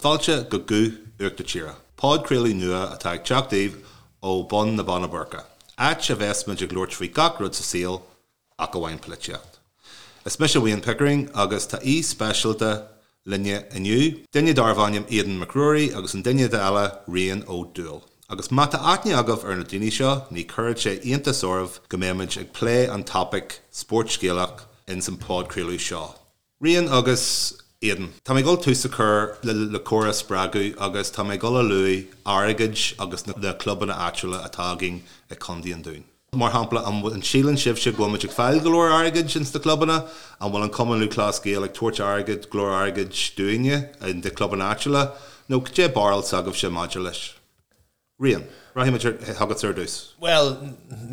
Fáilte go Guth Uachtar Tíre, podchraoladh nua atá ag teacht daoibh ó Bun na Binne Boirche, áit a bheas muid ag labhairt faoi gach rud sa saol ach amháin polaitíocht. Is mise Wayne Pickering agus tá aoi speisialta linne inniu, duine darbh ainm Aidan Mac Ruairí agus an duine eile Rian Ó Dubhghaill. Agus má tá aithne agaibh ar na daoine seo, ní chuirfidh sé iontas oraibh go mbeimid ag plé an topaic spórt Gaelach ins an podchraoladh seo. Rian agus Aidan, tá mé ag dul tús a chur le comhrá a spreagadh agus tá mé ag dul a luaigh airgead agus na clubanna áitiúla atá againn i Contae an Dúin. Mar shampla, an síleann sibhse go bhfuil muid ag fáil go leor airgid ins na clubanna? An bhfuil an Cumann Lúthchleas Gael ag tabhairt airgid, go leor airgid dúinne in na clubanna áitiúla? Nó cad é barúil s'agaibhse maidir leis? Rian, rachaidh muid chugatsa ar dtús. Bhuel,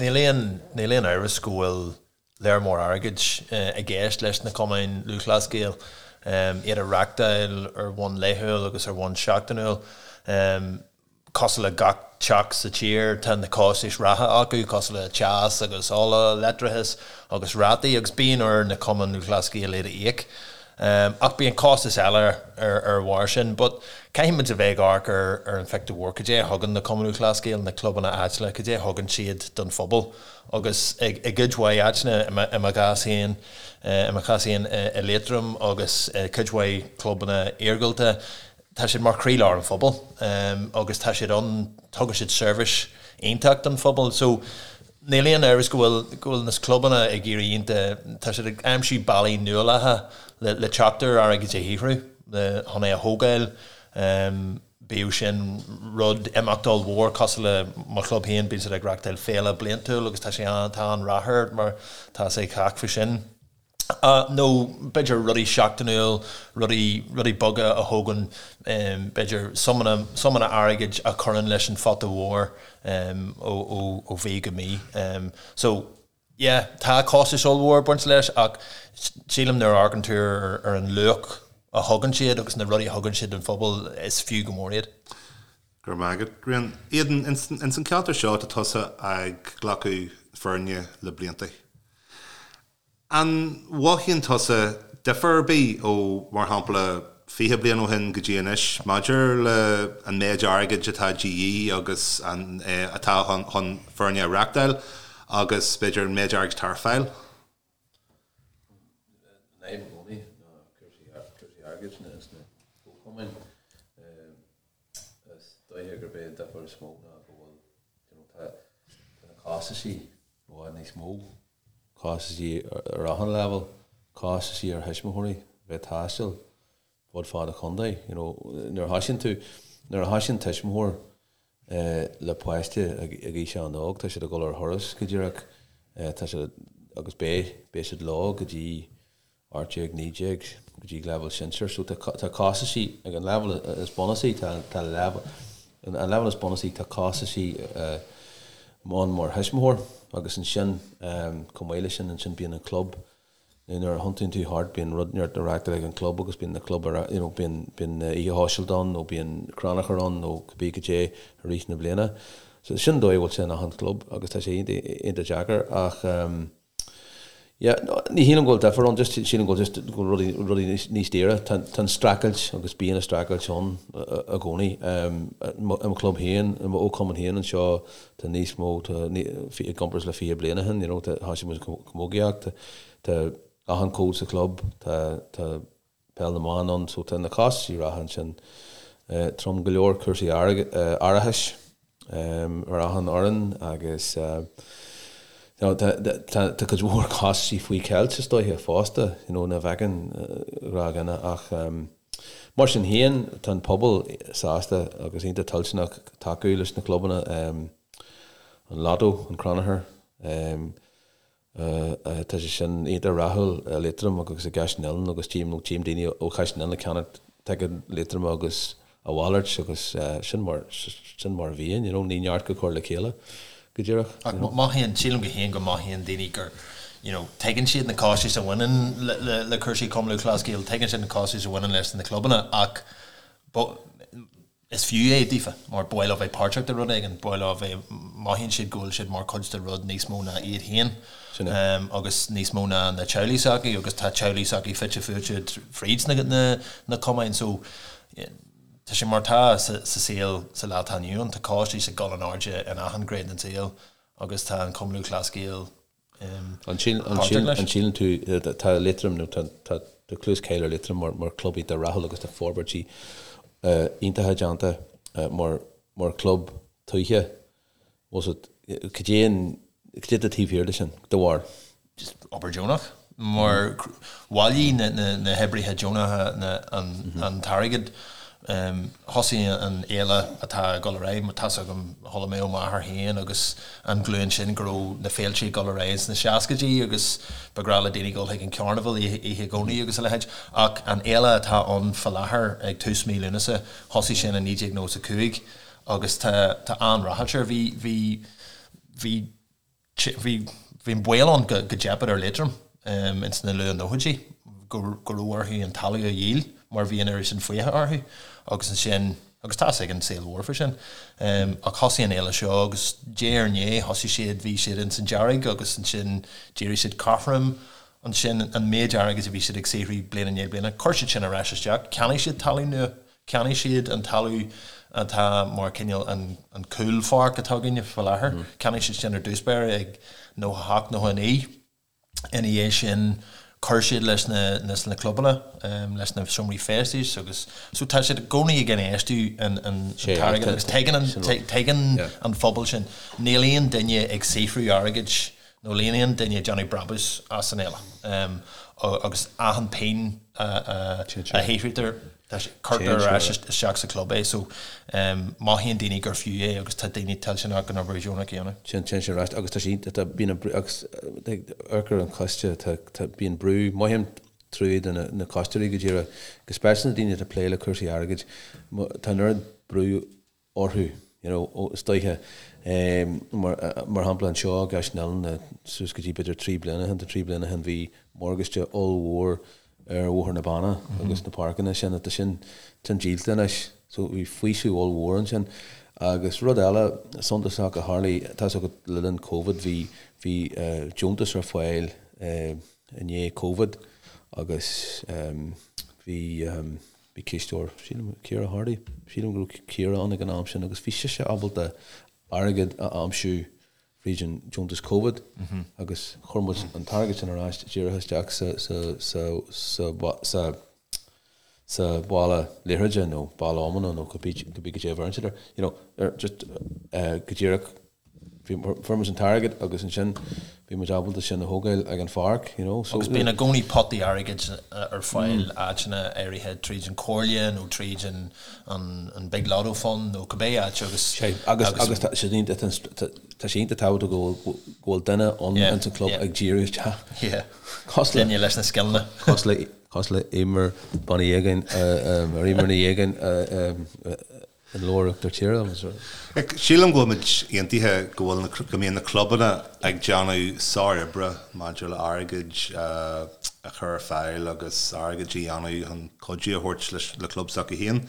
níl aon, níl aon amhras go bhfuil léar mór airgid i gceist leis na Cumainn Lúthchleas Gael, iad a reachtáil ar bhonn laethúil agus ar bhonn seachtainiúil. Cosúil le gach teach sa tír, tá na costais reatha acu, cosúil le teas agus ola, leictreachas agus rátaí, agus bíonn ar na Cumainn Lúthchleas Gael iad a íoc. Ach bíonn costais eile ar bharr sin. But caithfidh muid a bheith ag amharc ar an phictiúr mhór, cad é a thugann na Cumainn Lúthchleas Gael, na clubanna áitiúla, cad é a thugann siad don phobal? Agus i gcuid mhaith áiteanna, i mo chás féin, i mo chás féin i Liatroim agus i cuid mhaith clubanna iargúlta, tá siad mar chroílár an phobail agus tá siad ann, tugann siad seirbhís iontach don phobal. So níl aon amhras go bhfuil, go bhfuil na clubanna ag iarraidh iontach, tá siad ag aimsiú bealaí nuálacha le, le teacht ar airgead a shaothrú, le, chun é a thógáil, bíodh sin rud, imeacht ollmhór cosúil le mo chlub féin, bíonn siad ag reachtáil féile bliantúil agus tá sé an, tá an-rath air mar tá a fhios ag cách faoi sin. Nó b'fhéidir rudaí seachtainiúil, rudaí, rudaí beaga a thógann b'fhéidir suimeanna, suimeanna airgid a chuireann leis an phota mhór ó, ó, ó mhí go mí. So, yeah, tá costais ollmhór ag baint leis ach sílim nuair a amharcann tú ar, ar an luach a thugann siad agus na rudaí a thugann siad don phobal, is fiú go mór iad. Go raibh maith agat, Rian. Aidan, ins an ceantar seo tá tusa ag glacadh foirne le blianta. An mhothaíonn tusa difear ar bith ó, mar shampla, 20 bliain ó shin go dtí anois maidir le an méid airgid atá de dhíth agus an atá chun foirne a reachtáil agus b'fhéidir an méid airgid atá ar fáil? An fhadhb i gcónaí ná cúrsaí airgid sna comhchumainn. Is dóiche gurb é an difear is mó ná go bhfuil, you know, tá na costaisí i bhfad níos mó. Costaisí ar achan leibhéal, costaisí ar thuismitheoirí bheith ag taisteal fud fad an chontae. You know, nuair a thoisíonn tú, nuair a thoisíonn tuismitheoir le páiste ag aois an-óg, tá siad ag dul ar thuras go díreach, tá siad, agus beidh, beidh siad leo go dtí 18, 19 go dtí leibhéal sinsir. So tá tá costaisí ag an leibhéal is bunúsaí, tá tá leibhéal an leibhéal is bunúsaí tá costaisí ann mar thuismitheoir agus ansin chomh maith leis sin ansin bíonn an club nuair a thiontaíonn tú thart bíonn rud neart á reachtáil ag an club agus bíonn na club ar you know bíonn bíonn oíche shóisialta ann nó bíonn crannchur ann nó cibé cad é i rith na bliana. So sin an dóigh a bhfuil sé in achan club agus tá sé iontach iontach deacair ach Yeah, ní shílim go bhfuil difear ann, just sílim go bhfuil just go bhfuil rudaí, rudaí níos, níos daoire. Tá, tá an streachailt agus bíonn an streachailt ann i gcónaí. I mo, i mo chlub féin, i mo chumann féin anseo, tá níos mó, tá, i gcomparáid le 20 bliain ó shin, you know, tá, thosaigh muid camógaíocht, tá, tá achan cód sa chlub, tá, tá peil na mban ann, so tá na costaisí reatha ansin trom go leor, cúrsaí árachais ar achan fhoireann agus you know tá cuid mhór costaisí faoi cheilt is dóiche fosta, you know, nach bhfeiceann gnáthdhuine ach mar sin féin tá an pobal sásta agus iontach toilteanach tacú leis na clubanna, an Lotto, an Crannchur. Tá sé sin iontach rathúil i Liatroim agus i gCaiseal na nOileán agus tchím, tchím daoine ó Chaiseal na nOileán ag ceannacht ticéad Liatroma agus a mhalairt agus sin mar, sin mar a bhíonn, you know, ní neart go cur le chéile go díreach. Ach mothaíonn, sílim go féin go mothaíonn daoine gur, you know, tuigeann siad na costais a bhaineann le, le, le cúrsaí Cumann Lúthchleas Gael, tuigeann siad na costais a bhaineann leis na clubanna ach Is fiú é daofa, mar ba mhaith leo bheith páirteach de rud éigin, ba mhaith leo bheith, mothaíonn siad go bhfuil siad mar chuid de rud níos mó ná iad féin agus níos mó ná na teaghlaigh s'acu agus tá teaghlaigh s'acu fite fuaite fríd na, na, na cumainn so. Tá sé mar atá sa saol sa lá atá inniu ann, tá costais ag dul in airde in achan ghné den saol agus tá an Cumann Lúthchleas Gael páirteach leis. An síleann tú, tá Liatroim nó tá clú is cáil ar Liatroim mar chlub iontach rathúil agus tá forbairtí iontacha déanta mar chlub tuaithe. Cad é an, cad é atá taobh thiar de sin, do bharúil? Just obair deonach. Mar bhailigh na hoibrithe deonacha an t-airgead. Thosaigh an fhéile atá ag dul ar aghaidh, tá's agam, chuala mé ó m'athair féin agus an ghlúin sin go raibh na féilte ag dul ar aghaidh sna seascaidí agus ba ghnách le daoine dul chuig an Carnival oíche Dhomhnaigh agus a leithéid. Ach an fhéile atá ann fá láthair ag tús mí Lúnasa, thosaigh sin i 1995 agus tá an-ráchairt air. Bhí, bhí, bhí. Bhí an baol ann go dteipfeadh ar Liatroim ins na luath-nóchaidí, go raibh orthu an talamh a dhíol mar bhí an oiread sin fiacha orthu agus ansin, agus tá's ag an saol mhór faoi sin, ach thosaigh an fhéile seo agus diaidh ar ndiaidh thosaigh siad, bhí siad ins an dearg agus ansin d'éirigh siad cothrom, ansin an méid airgid a bhí siad ag saothrú bliain i ndiaidh bliana, chuir siad sin ar ais isteach, cheannaigh siad talamh nua. Cheannaigh siad an talamh atá mar cineál an cúlpháirc atá againne faoi láthair. Cheannaigh siad sin ar dtús báire ag 98, 99. Ina dhiaidh sin chuir siad leis na leis na clubanna, leis na seomraí feistis agus so tá siad i gcónaí ag infheistiú an an t-airgead agus tuigeann an tuigeann an phobal sin. Níl aon duine ag saothrú airgid nó níl aon duine ag déanamh brabús as an fhéile agus achan pingin a shaothraítear cuirtear ar ais isteach sa chlub é so mothaíonn daoine gur fiú é agus tá daoine toilteanach an obair dheonach a dhéanamh. Téann sé ar ais agus tá sé iontach, bíonn an brú agus amharc ar an choiste, tá bíonn brú, mothaím trua do na coisteoirí go díreach, go speisialta na daoine atá ag plé le cúrsaí airgid, tá an oiread brú orthu, you know, is dóiche, mar, mar shampla anseo i gCaiseal na nOileán, suas go dtí b'fhéidir 3 bliana ó shin, 3 bliana ó shin bhí morgáiste ollmhór ar Bhóthar na Banna agus na páirceanna sin, tá sin, sin díolta anois, so bhí faoiseamh ollmhór ansin. Agus rud eile suntasach a tharlaigh, tá's agat le linn Covid bhí, bhí deontas ar fáil i ndiaidh Covid agus bhí, Bhí cisteoir, sílim, Ciara Hardy, sílim go raibh Ciara ann ag an am sin agus bhí sise ábalta airgead a aimsiú fríd an deontas Covid agus chuir muid an t-airgead sin ar ais díreach isteach sa sa sa sa sa sa bhaile liathróide nó baile iomána nó cibé cibé cad é a bheireann siad air, you know, ar just go díreach Fuair muid an t-airgead agus ansin bhí muid ábalta sin a thógáil ag an pháirc, you know, so. Agus bíonn i gcónaí potaí airgid ar fáil áiteanna áirithe tríd an Chomhairle nó tríd an an Big Lotto Fund nó cibé áit agus. Sea, agus agus tá sé iontach tá sé iontach tábhachtach go bhfuil go bhfuil duine ann ins an club ag díriú isteach. Yeah. Cosúil le. Duine leis na scileanna. Cosúil le cosúil le Eimear Bean Uí Aogáin, ar Eimear Ní Aogáin In leabhar Uachtar Tíre agus. Sílim go bhfuil muid aontaithe go bhfuil na, go mbíonn na clubanna ag déanamh sároibre maidir le airgead a chur ar fáil agus airgead a dhéanamh chun cuidiú a thabhairt leis le club s'acu féin.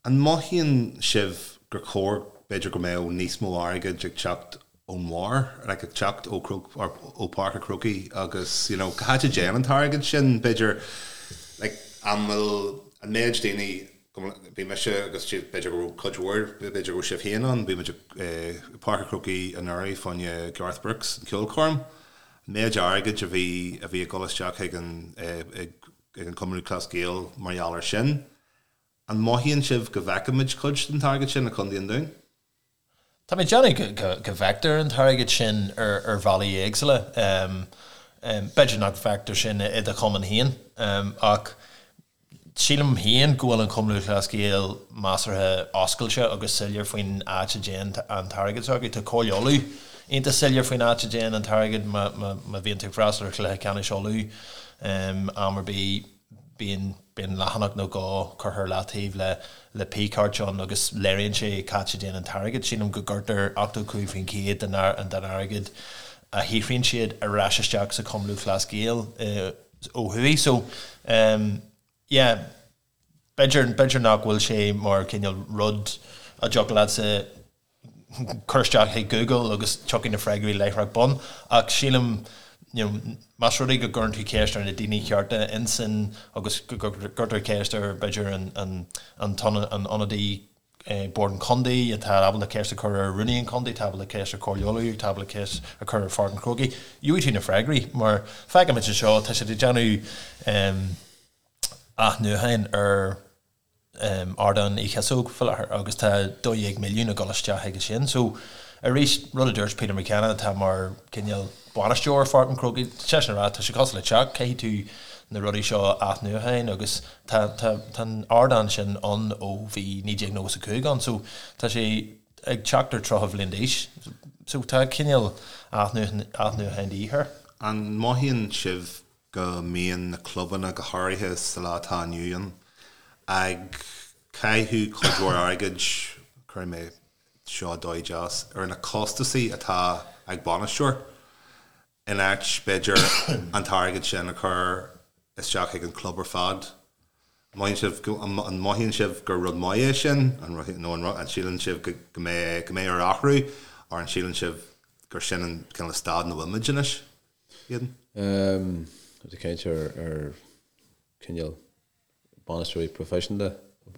An mothaíonn sibh gur chóir b'fhéidir go mbeadh níos mó airgid ag teacht ón mbarr, like ag teacht ó ó Páirc an Chrócaigh agus you know cá háit a dtéann an t-airgead sin b'fhéidir like an bhfuil an méid daoine Bhí mise agus b'fhéidir go raibh cuid mhór, b'fhéidir go raibh sibh féin ann, bhí muid i Páirc an Chrócaigh anuraidh fá choinne Garth Brooks, an ceolchoirm. An méid airgid a bhí a bhí ag dul isteach chuig an ag an Cumann Lúthchleas Gael mar gheall air sin. An mothaíonn sibh go bhfeicimid cuid den t-airgead sin i Contae an Dúin? Tá mé ag déanamh go bhfeictear an t-airgead sin ar bhealaí éagsúla. B'fhéidir nach bhfeictear sin i do chumann féin, ach sílim féin go bhfuil an Cumann Lúthchleas Gael measartha oscailte agus soiléir faoin áit a dtéann an t-airgead s'acu. Tá Comhairle Uladh iontach soiléir faoin áit a dtéann an t-airgead má bhíonn tú ag freastal ar chluiche ceannais Uladh am ar bith. Bíonn bíonn leathanach nó dhó curtha ar leataobh le le pie chart ann agus léiríonn sé cá háit a dtéann an t-airgead. Sílim go gcuirtear 85% den den airgead a shaothraíonn siad ar ais isteach sa Chumann Lúthchleas Gael ó thuaidh. So yeah, b'fhéidir b'fhéidir nach bhfuil sé mar cineál rud a dtiocfadh leatsa cur isteach chuig Google agus tiocfaidh na freagraí láithreach bonn ach sílim. You know, más rud é go gcuireann tú ceist ar na daoine cearta insan agus go gcuirtear ceist ar b'fhéidir an an an an ionadaí Bord an Chontae atá ábalta ceist a chur ar Rúnaí an Chontae, atá ábalta ceist ar Chomhairle Uladh, atá ábalta ceist a chur ar Pháirc an Chrócaigh, gheobhaidh tú na freagraí mar feicimid anseo tá siad ag déanamh athnuachan ar Ardán Uí Chíosóg faoi láthair agus tá 12 milliún ag dul isteach chuige sin. So arís, rud a dúirt Peter McKenna atá mar cineál bainisteoir Pháirc an Chrócaigh, tá seisean ag rá tá sé cosúil le teach, caithfidh tú na rudaí seo a athnuachan agus tá tá tá an ardán sin ann ó bhí 1995 ann so tá sé ag teacht ar 30 bhliain d'aois so tá cineál athnuachan athnuachan de dhíth air. An mothaíonn sibh go mbíonn na clubanna, go háirithe sa lá atá inniu ann, ag caitheamh cuid mhór airgid, cuirfidh mé seo dóigh deas, ar na costasaí atá ag bainisteoir, in áit, b'fhéidir, an t-airgead sin a chur isteach chuig an club ar fad. An mothaíonn sibh go, an mothaíonn sibh gur rud maith é sin, an, nó an síleann sibh go mbeidh, go mbeidh air athrú, or an síleann sibh gur sin an cineál staid ina bhfuilimid anois? Aidan? Tá caint ar ar cineál bainisteoirí proifisiúnta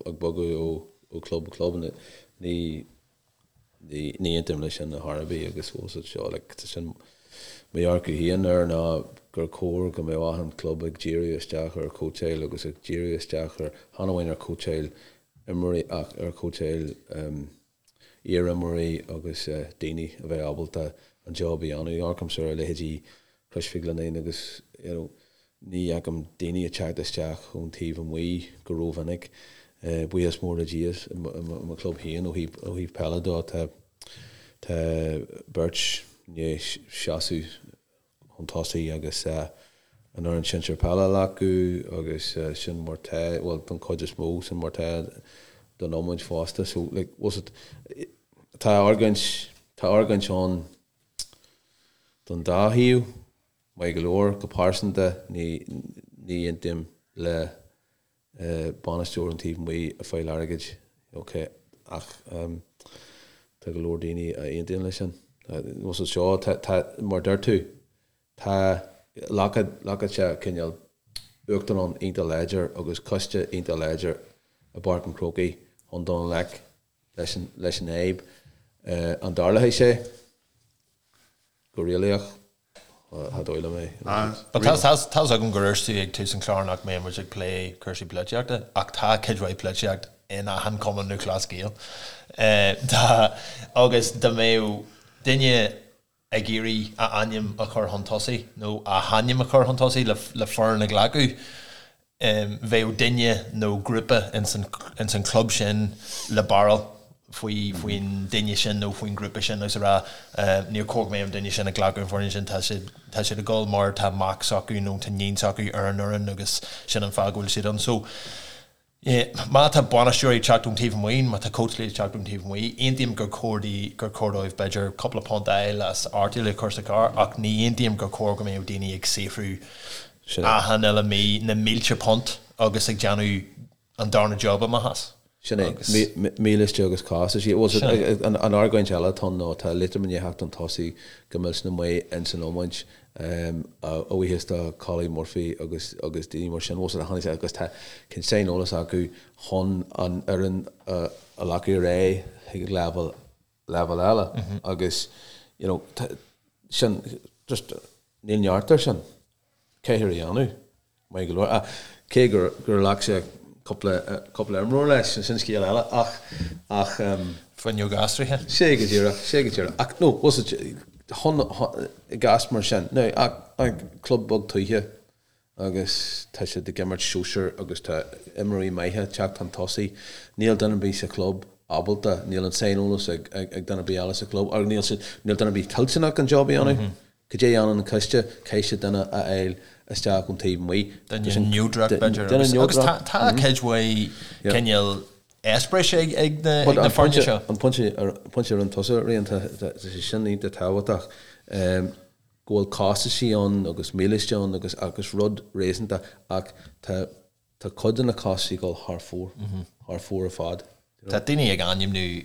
ag bogadh ó chlub go club. Ní ní ní aontaím leis sin ar chor ar bith agus bhfuil siad seo like tá sin mo dhearcadh féin air ná gur chóir go mbeadh achan club ag díriú isteach ar chóitseáil agus ag díriú isteach ar chan amháin ar chóitseáil imreoirí ach ar chóitseáil iar-imreoirí agus daoine a bheadh ábalta an job a dhéanamh. Amharcaimse ar leithéidí Chrois Mhic Lionnáin agus you know ní fheicim daoine ag teacht isteach ón taobh amuigh go rómhinic. Buíochas mór le Dia i mo chlub féin ó thaobh ó thaobh peile de tá tá beirt i ndiaidh seasamh chun tosaigh agus an fhoireann sinsir peile a ghlacadh agus sin mar tá, bhuel don chuid is mó, sin mar tá don iomáint fosta. So like was it, tá argóint, tá argóint ann don dá thaobh, maith go leor, go pearsanta ní, ní aontaím le bainisteoir ón taobh amuigh ag fáil airgid, ok, ach tá go leor daoine a aontaíonn leis sin. Was it seo, tá, tá, mar deir tú, tá, ghlacfadh sé cineál uachtarán iontach láidir agus coiste iontach láidir i bPáirc an Chrócaigh chun dul i ngleic leis an, leis an fhadhb. An dtarlóidh sé? Go réalaíoch, cha dóigh liom é. But tá a fhios agam gur dúirt tú ag tús an chláir nach mbeadh muid ag plé cúrsaí polaitíochta, ach tá cuid mhaith polaitíocht in achan Cumann Lúthchleas Gael. Tá, agus dá mbeadh duine ag iarraidh a ainm a chur chun tosaigh, nó a hainm a chur chun tosaigh le foireann a ghlacadh, bheadh duine nó grúpa ins an chlub sin le barúil faoi faoin duine sin nó faoin ghrúpa sin agus a rá níor chóir go mbeadh an duine sin ag glacadh an foireann sin, tá siad tá siad ag dul mar tá mac s'acu nó tá níon s'acu ar an fhoireann agus sin an fáth go bhfuil siad ann. So má tá bainisteoirí ag teacht ón taobh amuigh, má tá cóitseálaithe ag teacht ón taobh amuigh, aontaím gur chóir di gur chóir dóibh b'fhéidir cúpla punt a fháil as artaíl a chur sa charr ach ní aontaím gur chóir go mbeadh daoine ag saothrú Sin é. Achan uile mí, na mílte punt agus ag déanamh an darna job amach as. Sin é. Agus. Mílíste agus costaisí. Bhuel, Sin é. an argóint eile atá ann ná tá Liatroim i ndiaidh theacht chun tosaigh go millteanach maith ins an iomáint, a bhuíochas do Collie Murphy agus agus daoine mar sin. Bhuel, tháinig sé agus tá cineál saineolas acu chun an fhoireann a ghlacadh ar aghaidh chuig leibhéal leibhéal eile agus you know sin just níl neart air sin caithfear a dhéanamh maith go leor ach cé gur gur ghlac sé cúpla cúpla imreoir leis sin scéal eile ach ach um, Fuinneog aistrithe. Sé go díreach, sé go díreach. Ach no, was it chun i gcás mar sin. Now, ach, ach club beag tuaithe agus tá siad ag imirt sóisir agus tá imreoirí maithe ag teacht chun tosaigh. Níl duine ar bith sa chlub ábalta, níl an saineolas ag duine ar bith eile sa chlub agus níl siad, níl duine ar bith toilteanach an job a dhéanamh. Cad é a dhéanann an coiste? Caithfidh siad duine a fháil isteach ón taobh amuigh. Duine neodrach b'fhéidir agus agus tá tá cuid mhaith cineál eispéiris ag ag na ag na foirne seo. An pointe pointe a rinne tusa Rian tá sé sin iontach tábhachtach. go bhfuil costaisí ann agus mílíste ann agus agus rud réasúnta ach tá tá cuid de na costaisí ag dul thar fóir, thar fóir ar fad. Tá daoine ag ainmniú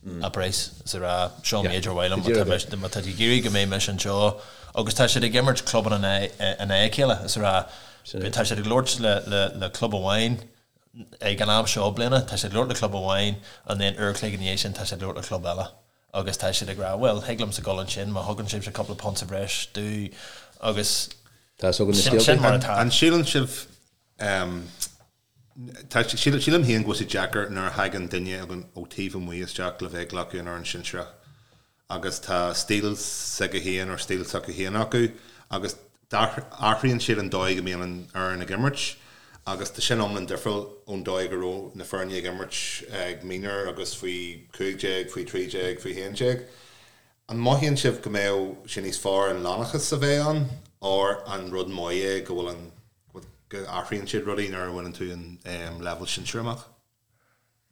a praghas is a rá seo an méid ar mhaith liom má tá tú ag iarraidh go mbeidh mise anseo agus tá siad ag imirt clubanna in aghaidh a chéile is a rá tá siad ag labhairt le club amháin ag an am seo bliana tá siad ag labhairt le club amháin and then uair a chloig ina dhiaidh sin tá siad ag labhairt le club eile agus tá siad ag rá bhuel thig liomsa dul ansin má thugann sibhse cúpla punt sa bhreis domh agus Tá a fhios againn na scéalta. sin mar atá. An síleann sibh Tá, sílim féin go bhfuil sé deacair nuair a thagann duine ó taobh amuigh isteach le bheith ag glacadh an fhoireann sinsearach agus tá stíl s'aige féin or stíl s'acu féin acu agus athraíonn siad an dóigh go mbíonn an fhoireann ag imirt agus tá sin iomlán difriúil ón dóigh go raibh na foirne ag imirt ag mionúir agus faoi 15, faoi 13, faoi 11. An mothaíonn sibh go mbeadh sé níos fearr an lánachas a bheith ann or an rud maith é go bhfuil an go athraíonn siad rudaí nuair a bhaineann tú an leibhéal sinsir amach?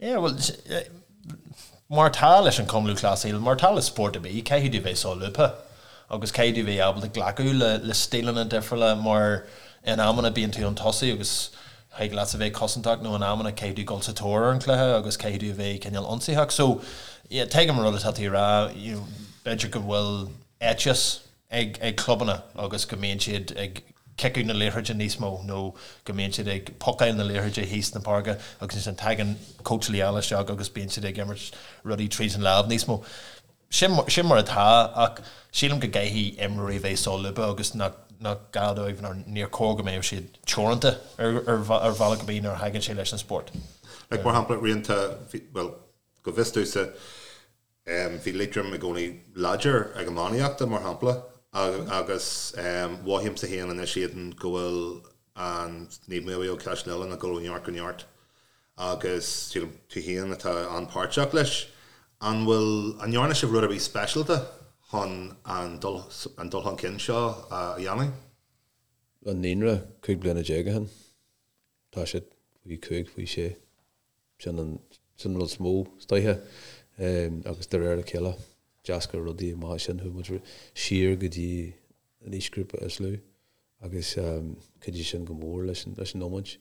Yeah, bhuel, mar atá leis an Cumann Lúthchleas Gael, mar atá le spórt ar bith, caithfidh tú bheith solúbtha agus caithfidh tú bheith ábalta glacadh le stíleanna difriúla mar in amanna bíonn tú chun tosaigh agus thig leatsa bheith cosantach nó in amanna caithfidh tú dul sa tóir ar an chluiche agus caithfidh tú a bheith cineál ionsaitheach. So, yeah, tuigim an rud atá tú a rá, you know, b'fhéidir go bhfuil éiteas ag ag clubanna agus go mbíonn siad ag ciceadh na liathróide níos mó nó go mbíonn siad ag pocáil na liathróide thíos na páirce agus ansin tagann cóitseálaí eile isteach agus bíonn siad ag imirt rudaí tríd an lámh níos mó. Sin sin mar atá ach sílim go gcaithfidh imreoirí bheith solúbtha agus nach nach gá dóibh nó níor chóir go mbeadh siad teoranta ar ar ar bhealach ar bith nuair a thagann sé leis an spórt. Like mar shampla rianta bhuel go bhfios domhsa Bhí Liatroim i gcónaí láidir ag iománaíochta, mar shampla, agus mothaímse féin anois Aidan go bhfuil an Naomh Maolmhaodhóg Caiseal Uidhilín ag dul ó neart go neart agus sílim tú féin atá an-páirteach leis. An bhfuil, an ndearna sibh rud ar bith speisialta chun an dul an dul chun cinn seo a dhéanamh? An naíonra, 15 bliana ó shin, tá siad faoi 5, faoi 6. Sin an sin an rud is mó is dóiche agus de réir a chéile d'eascair rudaí amach as sin chuaigh muid siar go dtí an aoisghrúpa is lú agus chuidigh sin go mór leis an leis an iomáint.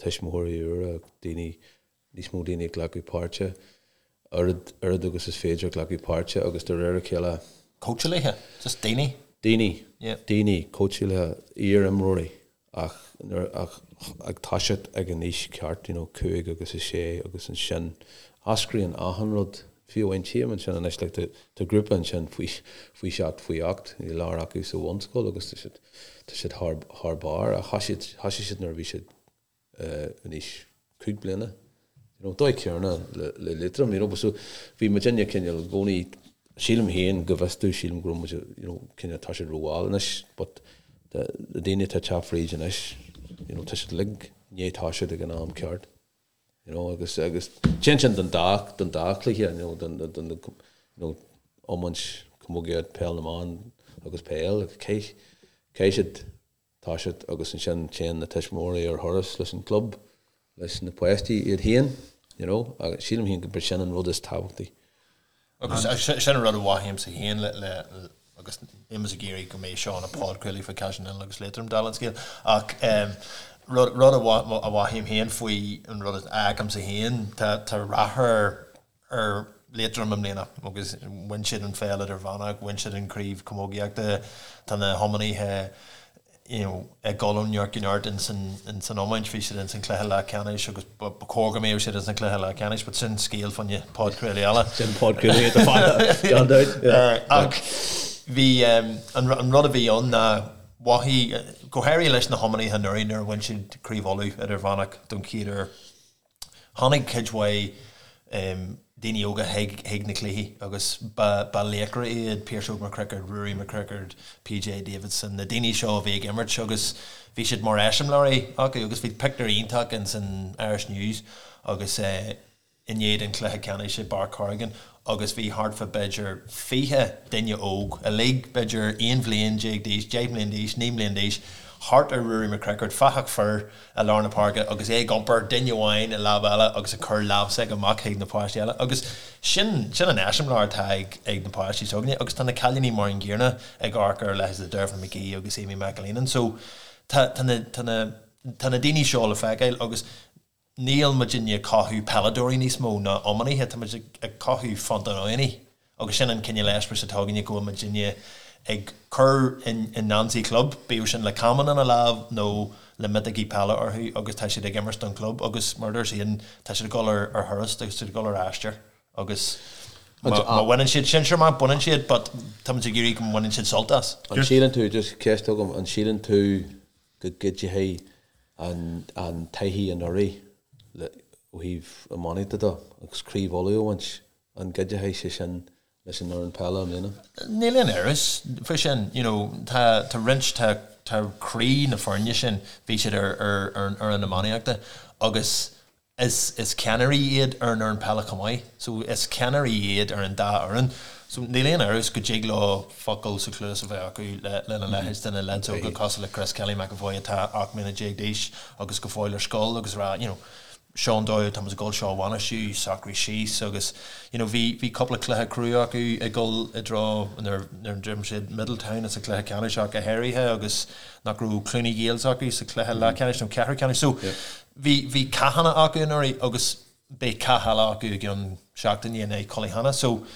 Tuismitheoirí úra, daoine, níos mó daoine ag glacadh páirte, oiread oiread agus is féidir glacadh páirte agus de réir a chéile. Cóitseálaithe, just daoine. Daoine, daoine, cóitseálaithe, iar-imreoirí. ach nuair ach ag toiseacht ag an aois ceart, you know, 5 agus 6 agus ansin eascraíonn achan rud, fiú amháin tchím ansin anois like tá tá grúpa ansin faoi faoi sheacht faoi ocht, go leor acu sa bhunscoil agus tá siad tá siad thar thar barr ach thoisigh thoisigh siad nuair a bhí siad eh in aois 5 bliana. You know, dóigh céanna le le Liatroim, you know, but so bhí muidinne cineál i gcónaí, sílim féin go bhfios domh, sílim go raibh muid, you know, cineál tá siad rómhall anois, but the na daoine atá ag teacht fríd anois, you know, tá siad uilig i ndiaidh toiseacht ag an am ceart, you know, agus agus téann sin don dá don dá chluiche, you know, don don you know, iomáint, camógaíocht, peil na mban agus peil, caithfidh caithfidh siad toiseacht agus ansin téann na tuismitheoirí ar thuras leis an gclub, leis na páistí iad féin, you know, agus sílim féin gurb sin an rud is tábhachtaí. Agus sin an rud a mhothaímse féin le, le, agus níl mise ag iarraidh go mbeidh seo ina podchraoladh faoi Caiseal an Oileáin agus Liatroim dála an scéil, ach rud, rud a mhothaím féin faoi an rud a fheicimse féin, tá, tá rath ar, ar Liatroim i mbliana agus bhain siad an pheil idirmheánach, bhain siad an chraobh camógaíochta, tá na hiománaithe you know ag dul ó neart go neart ins an ins an iomáint, bhí siad ins an cluiche leathcheannais agus ba chóir go mbeadh siad ins an cluiche leathcheannais but sin scéal fá choinne podchraoladh eile. Sin podchraoladh atá fada, gan dabht. Ach bhí an an rud a bhí ann ná mhothaigh, go háirithe leis na hiománaithe anuraidh nuair a bhain siad Craobh Uladh idirmheánach don chéad uair, Tháinig cuid mhaith daoine óga chuig na cluichí agus ba laochra iad Pearse Óg McCrickard, Ruairí McCrickard, PJ Davidson, na daoine seo a bhí ag imirt agus bhí siad mar eiseamláirí acu agus bhí pictiúr iontach ins an Irish News agus i ndiaidh an chluiche ceannais i bPáirc Corrigan agus bhí thart fá b'fhéidir 20 duine óg, uilig b'fhéidir 11 bhliain d'aois, 10 mbliain d'aois, 9 mbliain d'aois, thart ar Ruairí McCrickard, fathach fir i lár na páirce agus é ag iompar duine amháin i lámh eile agus ag cur lámh s'aige amach chuig na páistí eile agus sin, sin an eiseamláir atá ag, ag na páistí s'againne agus tá na cailíní mar an gcéanna ag amharc ar leithéid de Dervla McGee agus Amy McAleenan so tá, tá na, tá na, tá na daoine seo le feiceáil agus. Níl muidinne ag cothú peileadóirí níos mó ná iománaithe, tá muid ag cothú fiontánaí agus sin an cineál eispéireas atá againne go bhfuil muidinne ag cur i ngeansaí club, bíodh sin le camán ina lámh nó le miotógaí peile orthu agus tá siad ag imirt don chlub agus mar a dúirt Aidan, tá siad ag dul ar thuras, tá siad ag dul ar aistear agus má bhaineann siad sinsear amach, baineann siad but tá muid ag iarraidh go mbaineann siad sult as. An síleann tú, just ceist agam, an síleann tú go gcuideoidh an taithí anuraidh ó thaobh iománaíochta de agus Craobh Uladh a bhaint, an gcuideoidh sé sin leis an fhoireann peile i mbliana? Níl aon amhras faoi sin. You know, tá tá roinnt, tá tá croí na foirne sin, bhí siad ar ar ar an fhoireann iománaíochta agus Is is ceannairí iad ar an fhoireann peile chomh maith. So is ceannairí iad ar an dá fhoireann. So níl aon amhras go dtig leo focal sa chluas a bheith acu le lena leithéid de na leaids óga cosúil le Chris Kelly McEvoy atá 18 mbliana d'aois agus go fóill ar scoil agus rá you know seo an dóigh atá muid ag dul seo a bhainistiú, socraigh síos agus you know bhí bhí cúpla cluiche crua acu ag dul i dtreo nuair nuair a d'imir siad Middletown sa chluiche ceannais ach go háirithe agus nach raibh Cluny Gaels acu sa chluiche leathcheannais nó ceathrú ceannais. So Bhí, bhí cathanna acu anuraidh agus beidh cath eile acu i gceann seachtaine in aghaidh Cullyhanna. So,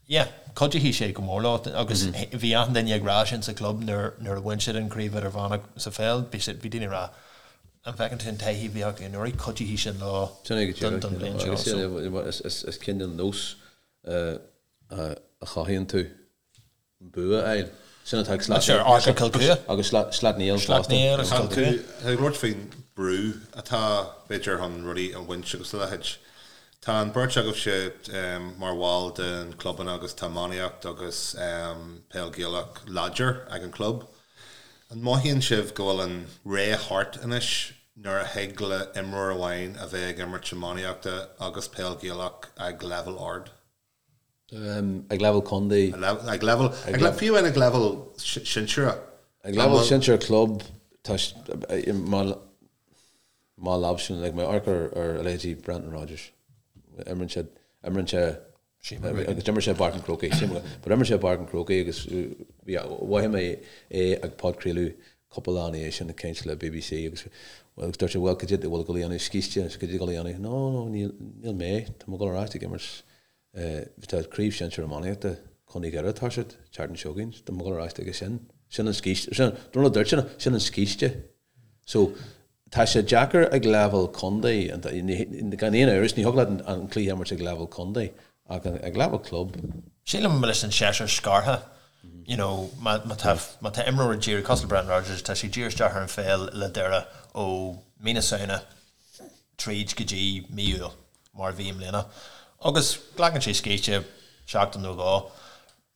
yeah, cuideoidh sé go mór leo agus bhí achan duine ag rá sin sa chlub nuair, nuair a bhain siad an chraobh idirmheánach sa pheil, bhí siad, bhí daoine ag rá, an bhfeiceann tú an taithí a bhí acu anuraidh, cuideoidh sin leo Sin é go don, don bhliain seo. Agus So. is, is, is cineál nós a chothaíonn tú. bua a fháil. Sin atá ag Sleacht Sure, Arthur Kilcua. Agus Sleacht Néill fosta. Sleacht Néill agus Kilcua. Tá tú ag labhairt faoin brú atá, b'fhéidir, chun rudaí a bhaint agus a leithéid. Tá an bheirt agaibhse mar bhall den clubanna agus tá iománaíocht agus peil Ghaelach láidir ag an chlub. An mothaíonn sibh go bhfuil an ré thart anois nuair a thig le imreoir amháin a bheith ag imirt iománaíochta agus peil Ghaelach ag leibhéal ard? Ag leibhéal contae. Ag leibhéal, fiú amháin ag leibhéal sinsearach. Ag leibhéal sinsear club, tá, má leamh like má amharc ar a leithéidí Brendan Rodgers, imríonn sé, imríonn sé, agus d'imir sé i bPáirc an Chrócaigh, but imir sé i bPáirc an Chrócaigh agus bhí, mhothaigh mé é ag podchraoladh cúpla lá ina dhiaidh sin ag caint le BBC agus agus dúirt sé bhuel cad é a bhfuil ag dul a dhéanamh scíste, cad é ag dul a dhéanamh? No, no, níl, níl mé, tá mé ag dul ar ais ag imirt Tá Craobh Shinsir Iománaíochta Chontae Dhoire ag toiseacht an tseachtain seo chugainn. Tá mé ag dul ar ais chuige sin. Sin an scíste. Sin, don rud a dúirt sé, sin an scíste. So, tá sé deacair ag leibhéal contae, gan aon amhras, ní thig leat an cluiche a imirt ag leibhéal contae, ach ag leibhéal club. Sílim leis an seisear scartha, you know, má tá, má tá imreoir ag díriú, cosúil le Brendan Rodgers, tá sé ag díriú isteach ar an pheil le Doire ó mí na Samhna tríd go dtí mí Iúil. mar a bhí i mbliana, agus glacann sé scíste seachtain nó dhó.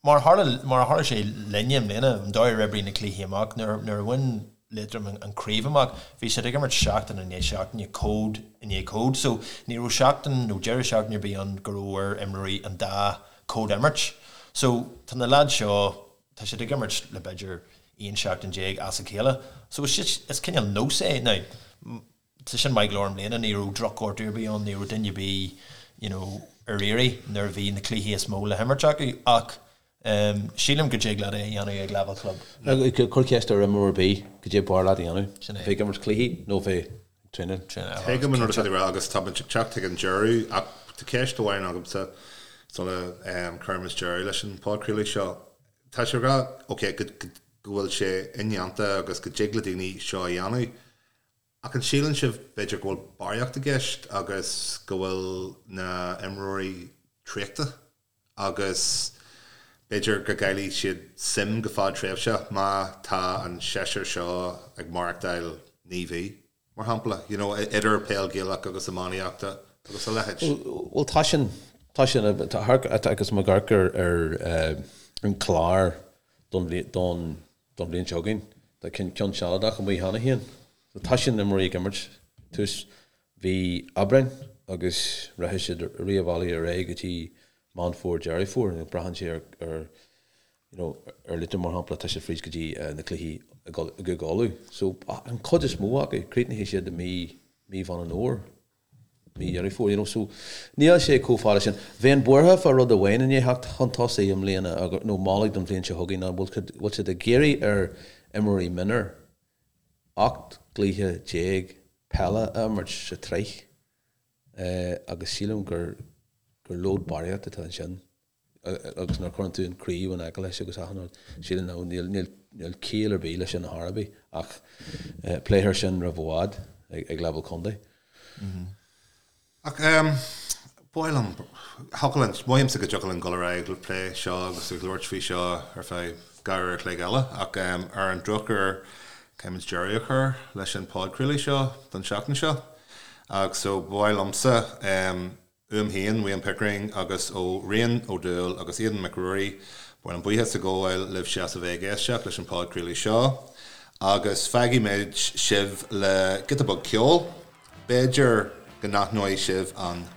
Mar a tharla, mar a tharla sé linne i mbliana, an dóigh ar oibrigh na cluichí amach, nuair, nuair a bhain Liatroim an chraobh amach, bhí siad ag imirt seachtain i ndiaidh seachtaine, cód i ndiaidh cód, so ní raibh seachtain nó deireadh seachtaine ar bith ann go raibh ar imreoirí an dá chód a imirt. So tá na leaids seo, tá siad ag imirt le b'fhéidir 11 seachtain as a chéile. So is, is cineál nós é. Now, Tá sin maith go leor i mbliana, ní raibh drochghortú ar bith ann, ní raibh duine ar bith you know ar iarraidh nuair a bhí na cluichí is mó le himirt acu ach sílim go dtig leat é a dhéanamh ag leibhéal club. Cuir ceist ar imreoir ar bith cad é b'fhearr leat a dhéanamh, bheith ag imirt cluichí nó bheith ag traenáil. Tuigim an rud atá tú ag rá agus tá muid ag teacht chuig an deireadh ach tá ceist amháin agamsa sula gcuirimid deireadh leis an podchraoladh seo. Tá sé ag rá, ok, go bhfuil sé indéanta agus go dtig le daoine seo a dhéanamh Ach an síleann sibh b'fhéidir go bhfuil barraíocht i gceist agus go bhfuil na imreoirí traochta agus b'fhéidir go gcaillfidh siad suim go fadtréimhseach má tá an seisear seo ag maireachtáil 9 mhí, mar shampla, you know, idir peil Ghaelach agus iománaíochta agus a leithéid? Bhuel tá sin, tá sin, agus má amharc ar ar an clár don don don bhliain seo chugainn. Tá ceann sealadach amuigh cheana féin. So tá sin imreoirí ag imirt tús mhí Aibreáin agus rachaidh siad rith an bhealaigh ar aghaidh go dtí Meán Fómhair, Deireadh Fómhair. Braitheann sé ar ar you know ar Liatroim mar shampla tá siad fríd go dtí na cluichí i gCúige Uladh. So an chuid is mó acu críochnaíonn siad i mí mí Mheán an Fhómhair. mí Dheireadh Fómhair, you know, so níl sé chomh fada sin. Bheinn buartha fá rud amháin i ndiaidh theacht chun tosaigh i mbliana, nó moladh don bhliain seo chugainn, ná bhfuil siad ag iarraidh ar imreoirí mionúir 18 gcluiche peile a imirt sa tsraith. Agus sílim gur gur lód barraíocht atá ansin agus nuair a chuireann tú an craobh in aice leis agus achan rud, sílim nó níl níl níl ciall ar bith leis sin ar chor ar bith ach pléifear sin roimh i bhfad ag leibhéal contae. Ach ba mhaith liom, thiocfadh linn, mothaímse go dtiocfadh linn dul ar aghaidh ag plé seo agus ag labhairt faoi seo ar feadh 2 uair a chloig eile ach ar an drochuair caithfimid deireadh a chur leis an podchraoladh seo don seachtain seo. Ach so ba mhaith liomsa uaim féin, Wayne Pickering, agus ó Rian Ó Dúill agus Aidan Mac Ruairí, ba mhaith liom buíochas a ghabháil libhse as a bheith ag éisteacht leis an podchraoladh seo agus fágfaidh muid sibh le giota beag ceoil. B'fhéidir go n-aithneoidh sibh an.